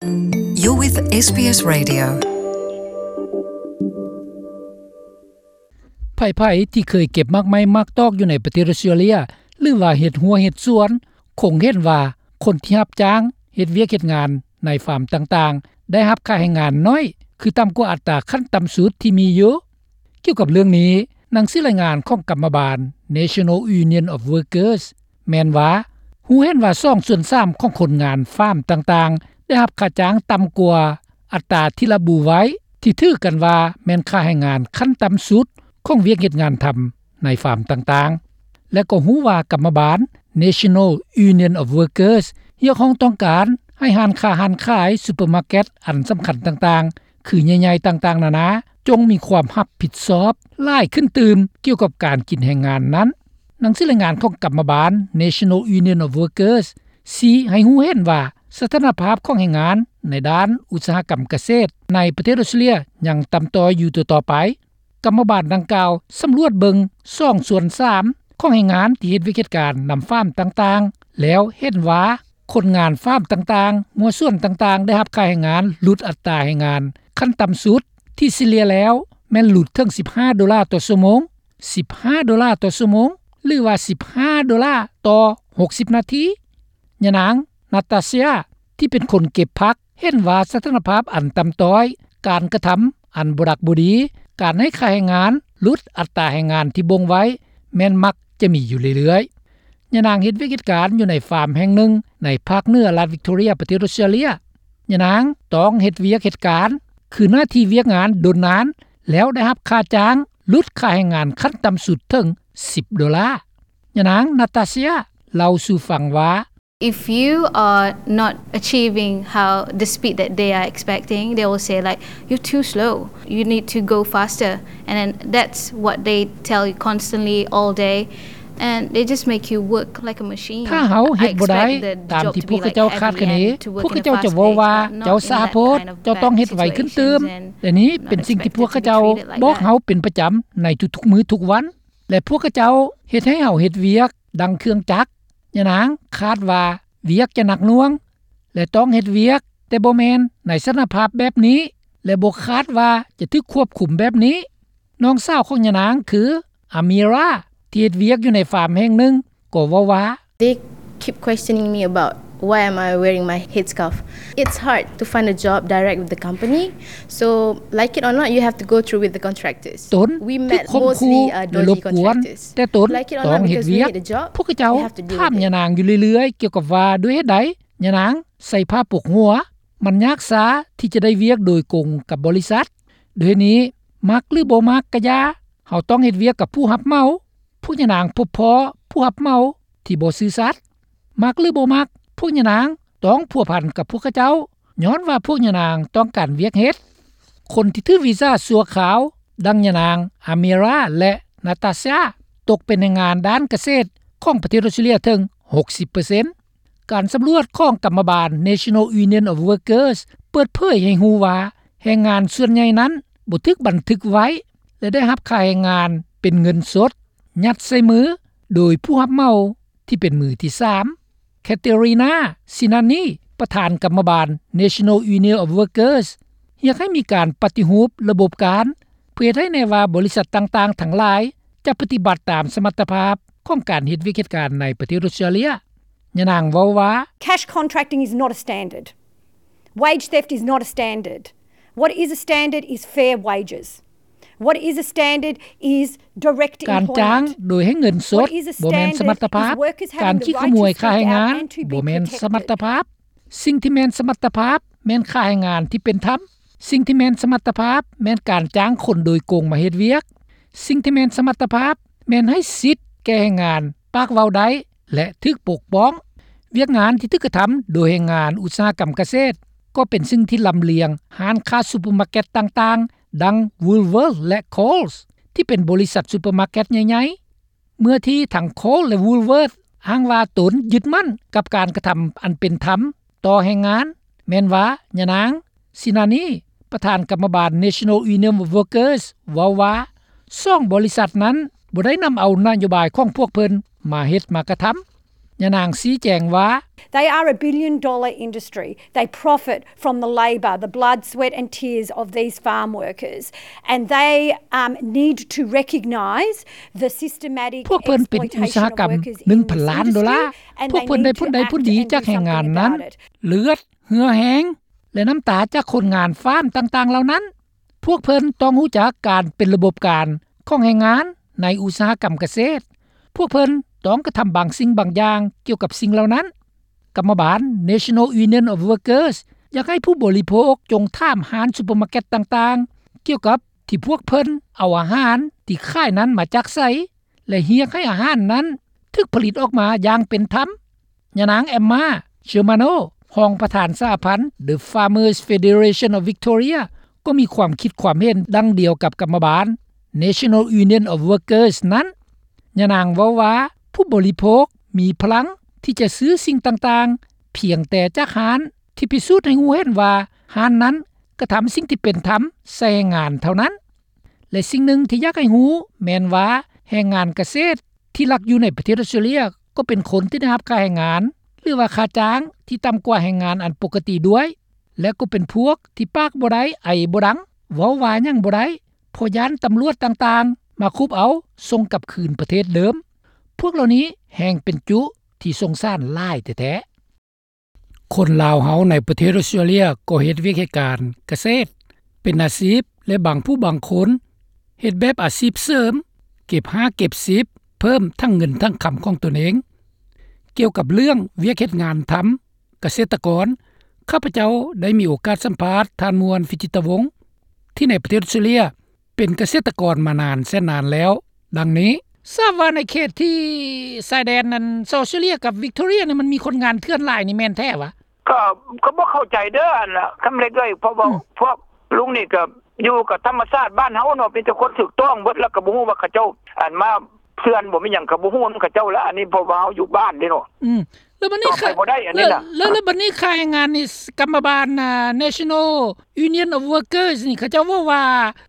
You're with ເອສບີເອສ Radio. ໃຜໆທີ່ເຄີຍເກັບໝາກໄມ້ໝາກຕອກຢູ່ໃນປະເທດອົດສະຕຣາເລຍ ຫຼືວ່າເຮັດຮົ້ວເຮັດສວນ ຄົງເຫັນວ່າຄົນທີ່ຮັບຈ້າງເຮັດວຽກເຮັດງານໃນຟາມຕ່າງໆ ໄດ້ຮັບຄ່າແຮງງານໜ້ອຍ ຄືຕ່ຳກວ່າອັດຕາຂັ້ນຕ່ຳສຸດທີ່ມີຢູ່. ກ່ຽວກັບເລື່ອງນີ້, ໜັງສືລາຍງານຂອງກຳມະບານ National Union of Workers ແມ່ນວ່າ ຮູ້ເຫັນວ່າສອງສ່ວນສາມຂອງຄົນງານຟາມຕ່າງໆ ໄດ້ຮັບຄ່າຈ້າງຕ່ຳກວ່າອັດຕາທີ່ລະບຸໄວ້ ທີ່ຖືກັນວ່າແມ່ນຄ່າແຮງງານຂັ້ນຕ່ຳສຸດຂອງວຽກເຮັດງານທຳໃນຟາມຕ່າງໆ ແລະ ກໍຮູ້ວ່າກຳມະບານ National Union of Workers ຮຽກຮ້ອງຕ້ອງການໃຫ້ຮ້ານຄ້າຮ້ານຂາຍ ຊຸບເປີມາເກັດອັນສຳຄັນຕ່າງໆ ຄືໃຫຍ່ໆຕ່າງໆນານາ ຈົ່ງມີຄວາມຮັບຜິດຊອບຫຼາຍຂຶ້ນຕື່ມກ່ຽວກັບການກິນແຮງງານນັ້ນ. ໜັງສືລາຍງານຂອງກຳມະບານ National Union of Workers ຊີ້ໃຫ້ຮູ້ເຫັນວ່າ ສະຖານະພາບຂອງແຮງງານໃນດ້ານອຸດສາຫະກຳກະເສດໃນປະເທດອົດສະຕຣາເລຍຍັງຕ່ຳຕ້ອຍຢູ່ຕໍ່ໆໄປ. ກຳມະບານດັ່ງກ່າວສຳຫຼວດເບິ່ງສອງສ່ວນສາມຂອງແຮງງານທີ່ເຮັດວຽກເຮັດການນຳຟາມຕ່າງໆ ແລ້ວເຫັນວ່າຄົນງານຟາມຕ່າງໆ ຫົວສວນຕ່າງໆ ໄດ້ຮັບຄ່າແຮງງານຫຼຸດອັດຕາແຮງງານຂັ້ນຕ່ຳສຸດ ທີ່ສະເລ່ຍແລ້ວແມ່ນຫຼຸດເຖິງສິບຫ້າໂດລາຕໍ່ຊົ່ວໂມງ, ສິບຫ້າໂດລາຕໍ່ຊົ່ວໂມງ ຫຼືວ່າສິບຫ້າໂດລາຕໍ່ຫົກສິບນາທີ. ຍານາງ ນາຕາເຊຍ ທີ່ເປັນຄົນເກັບຜັກ ເຫັນວ່າສະຖານະພາບອັນຕ່ຳຕ້ອຍ, ການກະທຳອັນບໍ່ດັກບໍ່ດີ, ການໃຫ້ຄ່າແຮງງານຫຼຸດອັດຕາແຮງງານທີ່ບົ່ງໄວ້ ແມ່ນມັກຈະມີຢູ່ເລື້ອຍໆ. ຍານາງເຮັດວຽກເຮັດການຢູ່ໃນຟາມແຫ່ງໜຶ່ງໃນພາກເໜືອລັດວິກຕໍເຣຍ ປະເທດອົດສະຕຣາເລຍ. ຍານາງຕ້ອງເຮັດວຽກເຮັດການ ຄືໜ້າທີ່ວຽກງານດົນນານ ແລ້ວໄດ້ຮັບຄ່າຈ້າງຫຼຸດຄ່າແຮງງານຂັ້ນຕ່ຳສຸດເຖິງສິບໂດລາ. ຍານາງ ນາຕາເຊຍ ເລົ່າສູ່ຟັງວ່າ If you are not achieving how the speed that they are expecting, they will say, like, "You're too slow. You need to go faster." And then that's what they tell you constantly all day. And they just make you work like a machine. ຖ້າເຮົາເຮັດບໍ່ໄດ້ຕາມທີ່ພວກເຂົາເຈົ້າຄາດຄະເນ, ພວກເຂົາເຈົ້າຈະເວົ້າວ່າ ເຈົ້າຊ້າໂພດ, ເຈົ້າຕ້ອງເຮັດໄວຂຶ້ນຕື່ມ. ແລະນີ້ເປັນສິ່ງທີ່ພວກເຂົາເຈົ້າບອກເຮົາເປັນປະຈຳໃນທຸກໆມື້ທຸກວັນ ແລະພວກເຂົາເຈົ້າເຮັດໃຫ້ເຮົາເຮັດວຽກ ດັ່ງເຄື່ອງຈັກ. ຍານາງຄາດວ່າວຽກຈະໜັກໜ່ວງ ແລະຕ້ອງເຮັດວຽກ ແຕ່ບໍ່ແມ່ນໃນສະຖານະພາບແບບນີ້ ແລະບໍ່ຄາດວ່າຈະຖືກຄວບຄຸມແບບນີ້. ນ້ອງສາວຂອງຍານາງຄື ອາມີຣາ ທີ່ເຮັດວຽກຢູ່ໃນຟາມແຫ່ງໜຶ່ງ ກໍເວົ້າວ່າ They keep questioning me about why am I wearing my headscarf. It's hard to find a job direct with the company. So, like it or not, you have to go through with the contractors. ຕົນຖືກຂົ່ມຂູ່ ແລະລົບກວນ, ແຕ່ຕົນຕ້ອງເຮັດວຽກ. ພວກເຂົາເຈົ້າຖາມຍານາງຢູ່ເລື້ອຍໆ ກ່ຽວກັບວ່າດ້ວຍເຫດໃດຍານາງໃສ່ຜ້າປົກຫົວ. ມັນຍາກຊ້າທີ່ຈະໄດ້ວຽກໂດຍກົງກັບບໍລິສັດ. ດ້ວຍເຫດນີ້, ມັກຫຼືບໍ່ມັກກະຢ່າ, ເຮົາຕ້ອງເຮັດວຽກກັບຜູ້ຮັບເໝົາ. ພວກຍານາງພົບພໍ້ຜູ້ຮັບເໝົາທີ່ບໍ່ຊື່ສັດ. ມັກຫຼືບໍ່ມັກ, ພວກຍານາງຕ້ອງພົວພັນກັບພວກເຂົາເຈົ້າ ຍ້ອນວ່າພວກຍານາງຕ້ອງການວຽກເຮັດ. ຄົນທີ່ຖືກວີຊາຊົ່ວຄາວ ດັ່ງຍານາງ ອາເມຣາ ແລະ ນາຕາຊາ ຕົກເປັນແຮງງານດ້ານກະເສດຂອງປະເທດອົດສະຕຣາເລຍເຖິງຫົກສິບເປີເຊັນ. ການສຳຫຼວດຂອງກຳມະບານ National Union of Workers ເປີດເຜີຍໃຫ້ຮູ້ວ່າ ແຮງງານສ່ວນໃຫຍ່ນັ້ນບໍ່ຖືກບັນທຶກໄວ້ ແລະ ໄດ້ຮັບຄ່າແຮງງານເປັນເງິນສົດ ຍັດໃສ່ມືໂດຍຜູ້ຮັບເໝົາທີ່ເປັນມືທີສາມ. ແຄເຕຣີນາ ຊິນານີ ປະທານກຳມະບານ National Union of Workers ຮຽກໃຫ້ມີການປະຕິຮູບລະບົບການ ເພື່ອເຮັດໃຫ້ແນ່ວ່າບໍລິສັດຕ່າງໆທັງຫຼາຍຈະປະຕິບັດຕາມສະມັດຕະພາບຂອງການເຮັດວຽກເຮັດການໃນປະເທດອົດສະຕຣາເລຍ. ຍານາງເວົ້າວ່າ Cash contracting is not a standard. Wage theft is not a standard. What is a standard is fair wages. What is a standard is direct employment. ການຈ້າງໂດຍໃຫ້ເງິນສົດບໍ່ແມ່ນສະມັດຕະພາບ. ການຂີ້ຂະໂມຍຄ່າແຮງງານບໍ່ແມ່ນສະມັດຕະພາບ. ສິ່ງທີ່ແມ່ນສະມັດຕະພາບແມ່ນຄ່າແຮງງານທີ່ເປັນທຳ. ສິ່ງທີ່ແມ່ນສະມັດຕະພາບແມ່ນການຈ້າງຄົນໂດຍກົງມາເຮັດວຽກ. ສິ່ງທີ່ແມ່ນສະມັດຕະພາບແມ່ນໃຫ້ສິດແກ່ແຮງງານປາກເວົ້າໄດ້ ແລະ ຖືກປົກປ້ອງ. ວຽກງານທີ່ຖືກກະທຳໂດຍແຮງງານອຸດສາຫະກຳກະເສດ ກໍເປັນສິ່ງທີ່ລຳລຽງຮ້ານຄ້າຊຸບເປີມາເກັດຕ່າງໆ ດັ່ງ Woolworths ແລະ Coles ທີ່ເປັນບໍລິສັດຊຸບເປີມາເກັດໃຫຍ່ໆ. ເມື່ອທີ່ທັງ Coles ແລະ Woolworths ອ້າງວ່າຕົນຍຶດໝັ້ນກັບການກະທຳອັນເປັນທຳຕໍ່ແຮງງານ, ແມ່ນວ່າຍານາງ ຊິນານີ ປະທານກຳມະບານ National Union of Workers ເວົ້າວ່າ ສອງບໍລິສັດນັ້ນບໍ່ໄດ້ນຳເອົານະໂຍບາຍຂອງພວກເພິ່ນມາເຮັດມາກະທຳ. ຍານາງຊີ້ແຈງວ່າ They are a billion dollar industry. They profit from the labour, the blood, sweat and tears of these farm workers, and they, um, need to recognise the systematic exploitation of workers in this industry, and they need to act and do something about it. ພວກເພິ່ນເປັນອຸດສາຫະກຳໜຶ່ງພັນລ້ານໂດລາ. ພວກເພິ່ນໄດ້ຜົນໄດ້ຜົນດີຈາກແຮງງານນັ້ນ, ເລືອດ, ເຫື່ອແຮງ ແລະ ນ້ຳຕາຈາກຄົນງານຟາມຕ່າງໆເຫຼົ່ານັ້ນ. ພວກເພິ່ນຕ້ອງຮູ້ຈັກການເປັນລະບົບການຂອງແຮງງານໃນອຸດສາຫະກຳກະເສດ. ພວກເພິ່ນຕ້ອງກະທຳບາງສິ່ງບາງຢ່າງກ່ຽວກັບສິ່ງເຫຼົ່ານັ້ນ. ກຳມະບານ National Union of Workers ຢາກໃຫ້ຜູ້ບໍລິໂພກຈົ່ງຖາມຮ້ານຊຸບເປີມາເກັດຕ່າງໆ ກ່ຽວກັບທີ່ພວກເພິ່ນເອົາອາຫານທີ່ຂາຍນັ້ນມາຈາກໃສ ແລະ ຮຽກໃຫ້ອາຫານນັ້ນຖືກຜະລິດອອກມາຢ່າງເປັນທຳ. ຍານາງ Emma Germano ຮອງປະທານສະຫະພັນ The Farmers Federation of Victoria ກໍມີຄວາມຄິດຄວາມເຫັນດັ່ງດຽວກັບກຳມະບານ National Union of Workers ນັ້ນ. ຍານາງເວົ້າວ່າ ຜູ້ບໍລິໂພກມີພະລັງທີ່ຈະຊື້ສິ່ງຕ່າງໆ ພຽງແຕ່ຈາກຮ້ານທີ່ພິສູດໃຫ້ຮູ້ເຫັນວ່າຮ້ານນັ້ນກະທຳສິ່ງທີ່ເປັນທຳໃສ່ແຮງງານເທົ່ານັ້ນ. ແລະ ສິ່ງໜຶ່ງທີ່ຢາກໃຫ້ຮູ້ແມ່ນວ່າ ແຮງງານກະເສດທີ່ລັກຢູ່ໃນປະເທດອອສເຕຣເລຍ ກໍເປັນຄົນທີ່ໄດ້ຮັບຄ່າແຮງງານ ຫຼືວ່າຄ່າຈ້າງທີ່ຕ່ຳກວ່າແຮງງານອັນປົກກະຕິດ້ວຍ ແລະ ກໍເປັນພວກທີ່ປາກບໍ່ໄດ້ ໄອບໍ່ດັງ ເວົ້າວ່າຫຍັງບໍ່ໄດ້ ເພາະຢ້ານຕຳຫຼວດຕ່າງໆມາຄຸບເອົາສົ່ງກັບຄືນປະເທດເດີມ. ພວກເຫຼົ່ານີ້ແຮ່ງເປັນຈຸທີ່ສົງສານຫຼາຍແທ້ໆ. ຄົນລາວເຮົາໃນປະເທດອອສເຕຣເລຍກໍເຮັດວຽກເຮັດການກະເສດເປັນອາຊີບ ແລະ ບາງຜູ້ບາງຄົນເຮັດແບບອາຊີບເສີມ ເກັບຫ້າເກັບສິບ ເພີ່ມທັງເງິນທັງຄຳຂອງຕົນເອງ. ກ່ຽວກັບເລື່ອງວຽກເຮັດງານທຳກະເສດຕະກອນ, ຂ້າພະເຈົ້າໄດ້ມີໂອກາດສຳພາດທ່ານ ມ່ວນ ວິຈິດຕະວົງ ທີ່ໃນປະເທດອອສເຕຣເລຍ ເປັນກະເສດຕະກອນມານານແສນນານແລ້ວ ດັ່ງນີ້. ຊາບວ່າໃນເຂດທີ່ຊາຍແດນນັ້ນ ອອສເຕຣເລຍກັບວິກຕໍເຣຍນີ້ ມັນມີຄົນງານເຖື່ອນຫຼາຍນີ້ແມ່ນແທ້ຫວາ? ກໍ ກໍບໍ່ເຂົ້າໃຈເດີ້ ອັນນ່າ ຄຳເລັກເອີຍ ເພາະວ່າ ອືມ ພວກລຸງນີ້ກໍຢູ່ກັບທຳມະຊາດບ້ານເຮົາເນາະ ມີແຕ່ຄົນຖືກຕ້ອງເບິດ ແລ້ວກໍບໍ່ຮູ້ວ່າເຂົາເຈົ້າ ອັນ ມາເຖື່ອນບໍ່ ມີຫຍັງກໍບໍ່ຮູ້ນຳເຂົາເຈົ້າລະ ອັນນີ້ເພາະວ່າເຮົາຢູ່ບ້ານເດ້ເນາະ. ອືມ ແລ້ວບັດນີ້ ຕໍ່ໄປບໍ່ໄດ້ອັນນີ້ນະ. ແລ້ວ ແລ້ວບັດນີ້ຄ່າແຮງງານນີ້ ກຳມະບານ ອ່າ National Union of Workers ນີ້ ເຂົາເຈົ້າເວົ້າວ່າ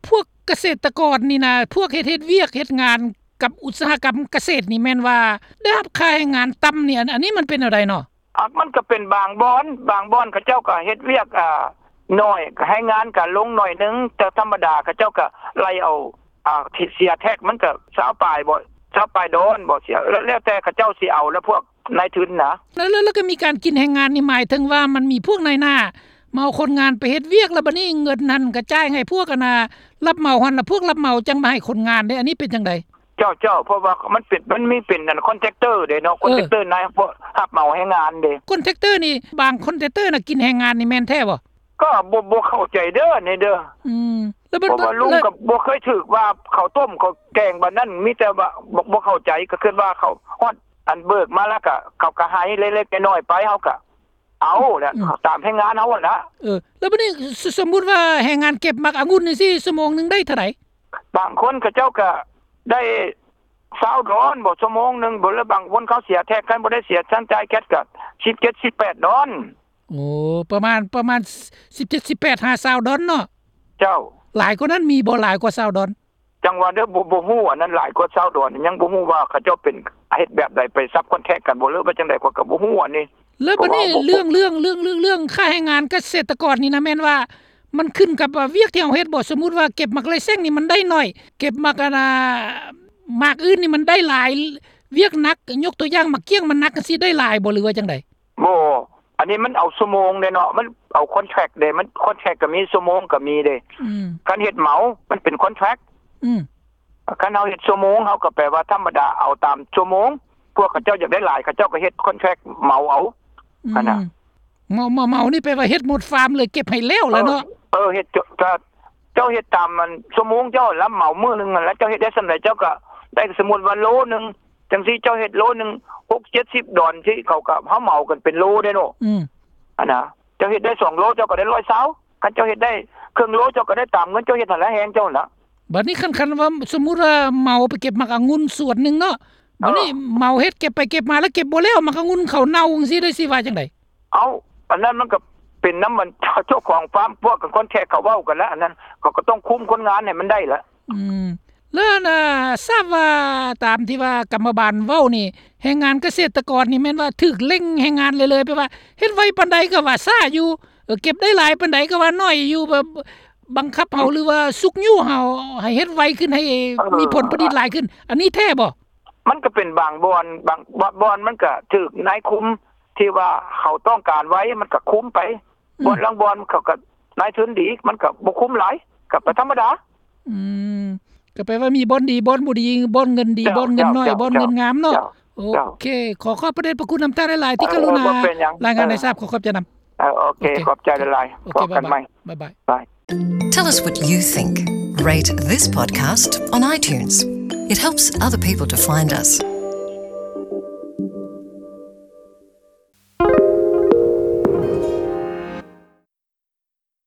ພວກກະເສດຕະກອນນີ້ນະ ພວກເຮັດ ເຮັດວຽກເຮັດງານກັບອຸດສາຫະກຳກະເສດນີ້ ແມ່ນວ່າໄດ້ຮັບຄ່າແຮງງານຕ່ຳນີ້ ອັນ ອັນນີ້ມັນເປັນແນວໃດເນາະ? ອາ ມັນກໍເປັນບາງບ່ອນ ບາງບ່ອນເຂົາເຈົ້າກໍເຮັດວຽກ ອາ ໜ້ອຍ ແຮງງານກໍລົງໜ້ອຍໜຶ່ງ ແຕ່ທຳມະດາເຂົາເຈົ້າກໍໄລ່ເອົາ ອາ ທີ່ເສຍແທັກ ມັນກໍຊາວປາຍບໍ ຊາວປາຍດອນບໍ ເສຍ ແລ້ວ ແລ້ວແຕ່ເຂົາເຈົ້າຊິເອົາ ແລ້ວພວກນາຍທຶນນະ. ແລ້ວ ແລ້ວ ແລ້ວກໍມີການກິນແຮງງານນີ້ ໝາຍເຖິງວ່າມັນມີພວກນາຍໜ້າມາເອົາຄົນງານໄປເຮັດວຽກ ແລ້ວບັດນີ້ເງິນຫັ້ນກໍຈ່າຍໃຫ້ພວກ ອັນນ່າ ຮັບເໝົາຫັ້ນ ແລ້ວພວກຮັບເໝົາຈັ່ງມາໃຫ້ຄົນງານເດ້ ອັນນີ້ເປັນຈັ່ງໃດ? ເຈົ້າ ເຈົ້າ ເພາະວ່າມັນເປັນ ມັນມີເປັນອັນ contractor ເດ້ເນາະ ເອີ contractor ນາຍຮັບເໝົາແຮງງານເດ້. Contractor ນີ້ ບາງ contractor ນະ ກິນແຮງງານນີ້ແມ່ນແທ້ບໍ່? ກໍບໍ່ ບໍ່ເຂົ້າໃຈເດີ້ ນີ້ເດີ້. ອືມ ແລ້ວ ເພາະວ່າລຸງ ແລ້ວ ກໍບໍ່ເຄີຍຖືກວ່າເຂົ້າຕົ້ມເຂົ້າແກງບາດນັ້ນ ມີແຕ່ວ່າບໍ່ ບໍ່ເຂົ້າໃຈ ກໍຄິດວ່າເຂົາຮອດ ອັນ ເບີກມາແລ້ວກໍ ເຂົາກໍໃຫ້ເລັກໆນ້ອຍໆໄປ ເຮົາກໍເອົາແຫຼະ ອືມ ຕາມແຮງງານເຮົາຫັ້ນລະ. ເອີ ແລ້ວບັດນີ້ ສົມມຸດວ່າແຮງງານເກັບໝາກອະງຸ່ນຈັ່ງຊີ້ ຊົ່ວໂມງໜຶ່ງໄດ້ເທົ່າໃດ? ບາງຄົນເຂົາເຈົ້າກໍໄດ້ຊາວດອນບໍ ຊົ່ວໂມງໜຶ່ງບໍ ແລ້ວບາງຄົນເຂົາເສຍແທັກ ຄັນບໍ່ໄດ້ເສຍ ຊັ້ນຈ່າຍແກັດກໍສິບເຈັດ ສິບແປດດອນ. ໂອ້ ປະມານ ປະມານສິບເຈັດ ສິບແປດ ຫາຊາວດອນເນາະ. ເຈົ້າ ຫຼາຍກວ່ານັ້ນມີບໍ່? ຫຼາຍກວ່າຊາວດອນ? ຈັ່ງວ່າເດີ້ ບໍ່ ບໍ່ຮູ້ ອັນນັ້ນຫຼາຍກວ່າຊາວດອນ ຍັງບໍ່ຮູ້ວ່າເຂົາເຈົ້າເປັນເຮັດແບບໃດ ໄປ subcontract ກັນບໍ່ ຫຼືວ່າຈັ່ງໃດ ຂ້ອຍກໍບໍ່ຮູ້ອັນນີ້. ແລ້ວບັດນີ້ເລື່ອງ ເລື່ອງ ເລື່ອງ ເລື່ອງ ເລື່ອງຄ່າແຮງງານກະເສດຕະກອນນີ້ນະ ແມ່ນວ່າມັນຂຶ້ນກັບ ອາ ວຽກທີ່ເຮົາເຮັດບໍ່? ສົມມຸດວ່າເກັບໝາກໄລ່ແຊງນີ້ມັນໄດ້ໜ້ອຍ ເກັບໝາກ ອັນນ່າ ໝາກອື່ນນີ້ມັນໄດ້ຫຼາຍ ວຽກໜັກ ຍົກຕົວຢ່າງໝາກກ້ຽງມັນໜັກຈັ່ງຊີ້ ໄດ້ຫຼາຍບໍ່ ຫຼືວ່າຈັ່ງໃດ? ບໍ່ ອັນນີ້ມັນເອົາຊົ່ວໂມງເດ້ເນາະ ມັນເອົາ contract ເດ້ ມັນ contract ກໍມີ ຊົ່ວໂມງກໍມີເດ້. ອືມ ຄັນເຮັດເໝົາມັນເປັນ contract. ອືມ ຄັນເຮົາເຮັດຊົ່ວໂມງ ເຮົາກໍແປວ່າທຳມະດາເອົາຕາມຊົ່ວໂມງ ພວກເຂົາເຈົ້າຢາກໄດ້ຫຼາຍ ເຂົາເຈົ້າກໍເຮັດ contract ເໝົາເອົາ. ອືມ ຫັ້ນນະ ເໝົາ ເໝົາ ເໝົານີ້ແປວ່າເຮັດໝົດຟາມເລີຍ ເກັບໃຫ້ແລ້ວລະເນາະ. ເອີ ເອີ ເຮັດ ເຈົ້າ ເຈົ້າເຮັດຕາມ ອັນ ຊົ່ວໂມງເຈົ້າ ຮັບເໝົາມື້ໜຶ່ງຫັ້ນລະ ເຈົ້າເຮັດໄດ້ສ່ຳໃດ ເຈົ້າກໍໄດ້ ສົມມຸດວ່າໂລໜຶ່ງ ຈັ່ງຊີ້ ເຈົ້າເຮັດໂລໜຶ່ງ ຫົກເຈັດສິບດອນຊີ້ ເຂົາກໍ ເຮົາເໝົາກັນເປັນໂລເດ້ເນາະ. ອືມ ອັນນະ ເຈົ້າເຮັດໄດ້ສອງໂລ ເຈົ້າກໍໄດ້ຮ້ອຍຊາວ ຄັນເຈົ້າເຮັດໄດ້ເຄິ່ງໂລ ເຈົ້າກໍໄດ້ຕາມເງິນເຈົ້າເຮັດຫັ້ນລະ ແຮງເຈົ້າຫັ້ນລະ. ບັດນີ້ຄັນ ຄັນວ່າສົມມຸດວ່າເໝົາໄປເກັບໝາກອະງຸ່ນສວນໜຶ່ງເນາະ ບັດນີ້ ເອີ ເໝົາເຮັດເກັບໄປເກັບມາ ແລ້ວເກັບບໍ່ແລ້ວ ໝາກອະງຸ່ນເຂົາເນົ່າຈັ່ງຊີ້ ໄດ້ຊິວ່າຈັ່ງໃດ? ເອົ້າ ອັນນັ້ນມັນກໍເປັນນຳ ອັນ ເຈົ້າຂອງຟາມ ພວກ contract ເຂົາເວົ້າກັນລະ ອັນນັ້ນເຂົາກໍຕ້ອງຄຸມຄົນງານໃຫ້ມັນໄດ້ລະ. ອືມ ແລ້ວນະ ຊາບວ່າຕາມທີ່ວ່າກຳມະບານເວົ້ານີ້ ແຮງງານກະເສດຕະກອນນີ້ແມ່ນວ່າຖືກເລັ່ງແຮງງານເລື້ອຍໆ ແປວ່າເຮັດໄວປານໃດກໍວ່າຊ້າຢູ່ ເອີ ເກັບໄດ້ຫຼາຍປານໃດກໍວ່າໜ້ອຍຢູ່ ແບບບັງຄັບເຮົາ ຫຼືວ່າຊຸກຍູ້ເຮົາໃຫ້ເຮັດໄວຂຶ້ນ ໃຫ້ມີຜົນຜະລິດຫຼາຍຂຶ້ນ ອັນນີ້ແທ້ບໍ່? ມັນກໍເປັນບາງບ່ອນ ບາງ ບາງບ່ອນມັນກໍຖືກນາຍຄຸມທີ່ວ່າເຂົາຕ້ອງການໄວ ມັນກໍຄຸມໄປ ອືມ ບ່ອນລາງບ່ອນເຂົາກໍນາຍທຶນດີ ມັນກໍບໍ່ຄຸມຫຼາຍ ກໍໄປທຳມະດາ. ອືມ ກໍແປວ່າມີບ່ອນດີ ບ່ອນບໍ່ດີ ບ່ອນເງິນດີ ເຈົ້າ ບ່ອນເງິນໜ້ອຍ ເຈົ້າ ບ່ອນເງິນງາມເນາະ. ເຈົ້າ ໂອເຄ ເຈົ້າ ຂໍຂອບພະເດດພະຄຸນນຳທ່ານຫຼາຍໆ ທີ່ ເອີ ກະລຸນາ ບໍ່ເປັນຫຍັງ ລາຍງານໃຫ້ຊາບ. ເອີ ຂໍຂອບໃຈນຳ. ເອີ ໂອເຄ ໂອເຄ ຂອບໃຈຫຼາຍໆ ໂອເຄ ພໍ້ກັນໃໝ່ ບາຍບາຍ. Bye. Tell us what you think. Rate this podcast on iTunes. It helps other people to find us.